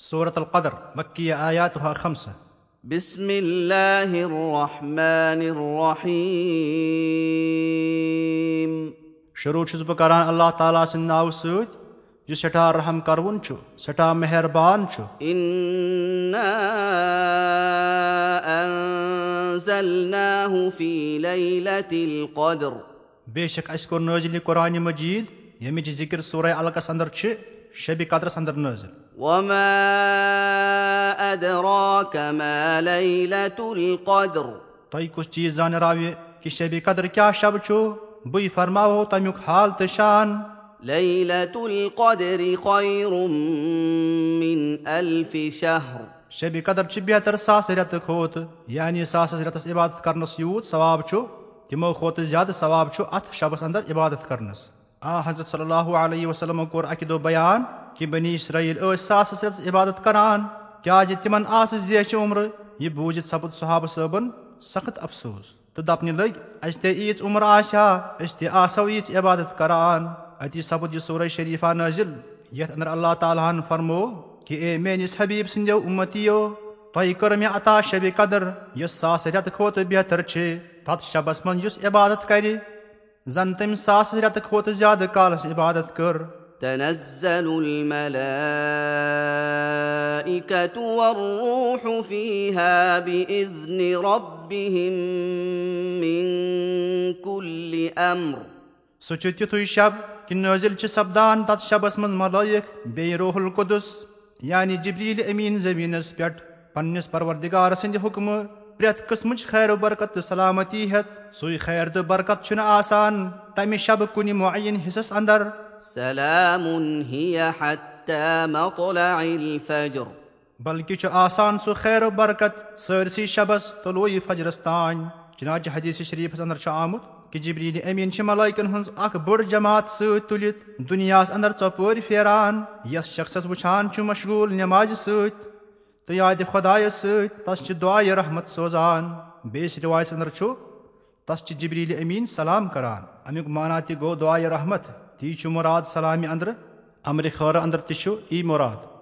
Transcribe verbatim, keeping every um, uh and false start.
سورة القدر، مکیہ، آیاتها خمسہ۔ بسم الله الرحمن الرحيم. شروع چھُس بہٕ کران اللہ تعالیٰ سٕنٛدِ ناوٕ سۭتۍ، یُس سٮ۪ٹھاہ رحم کروُن چھُ، سٮ۪ٹھاہ مہربان چھُ۔ إنا أنزلناه في ليلة القدر. بے شک اَسہِ کوٚر نٲزِل یہِ قرآن مجید، ییٚمِچ ذِکر سورہ علقس اندر چھِ، شبِ قدرس اندر نٲزِل۔ وما أدراك ما ليلة القدر. تۄہہِ کُس چیٖز زانراوِ کہِ شبِ قدر کیٛاہ شب چھُ؟ بٕے فرماوو تَمیُک حال تہٕ شان۔ ليلة القدر خير من ألف شهر. شبِ قدر چھِ بہتر ساسہٕ رٮ۪تہٕ کھۄتہٕ، یعنی ساسس رٮ۪تس عبادت کرنس یوٗت ثواب چھُ، تِمو کھۄتہٕ زیادٕ ثواب چھُ اتھ شبس اندر عبادت کرنس۔ آ حضرت صلی اللہ علیہ وسلمو کوٚر اکہِ دۄہ بیان کہِ بنی اسرائیل ٲسۍ ساسس رٮ۪تس عبادت کران، کیازِ تِمن آسہٕ زیچھِ عمرٕ۔ یہِ بوٗزِتھ سپُد صحابہٕ صٲبن سخت افسوس تہٕ دپنہِ لٔگۍ، اسہِ تہِ ییٖژ عمر آسہِ ہا، أسۍ تہِ آسو ییٖژ عبادت کران۔ اتی سپُد یہِ سورہ شریفہ نٲزِل، یتھ اندر اللہ تعالیٰ ہن فرموو کہِ اے میٲنِس حبیب سٕنٛدیو امتیو، تۄہہِ کٔر مےٚ عطا شبِ قدر، یۄس ساس رٮ۪تہٕ کھۄتہٕ بہتر چھِ۔ تتھ شبس منٛز یُس عبادت کرِ، زن تٔمۍ ساس رٮ۪تہٕ کھۄتہٕ زیادٕ کالس عبادت کٔر۔ تنزل الملائكة والروح فيها بإذن ربهم من كل أمر. سُہ چھُ تِتھُے شب کہِ نٲزِل چھِ سپدان تتھ شبس منٛز ملائک بیٚیہِ روح القدس، یعنی جبریل امین زمینس پٮ۪ٹھ پننِس پروردگار سٕنٛدِ حکمہٕ پرٛٮ۪تھ قٕسمٕچ خیر و برکت تہٕ سلامتی ہٮ۪تھ۔ سُے خیر تہٕ برکت چھُنہٕ آسان تمہِ شبہٕ کُنہِ معین حصس اندر۔ سلام هي حتى مطلع الفجر. بلکہِ چھُ آسان سُہ خیر و برکت سٲرسٕے شبس طلوع فجرس تام۔ چنانچہ حدیث شریفس اندر چھُ آمُت کہِ جبریل امین چھِ ملائکن ہٕنٛز اکھ بٔڑ جماعت سۭتۍ تُلِتھ دُنیاہس اندر ژۄپٲرۍ پھیران، یس شخصس وٕچھان چھُ مشغول نمازِ سۭتۍ تہٕ یادِ خدایس سۭتۍ، تس چھِ دعایہِ رحمت سوزان۔ بیٚیِس روایتس اندر چھُ، تس چھِ جبریل امین سلام کران۔ امیُک معنی تہِ گوٚو دعایہِ رحمت، تی چھُ مراد سلامہِ اندرٕ۔ امرِ خٲرٕ اندر تہِ چھُ یی مراد۔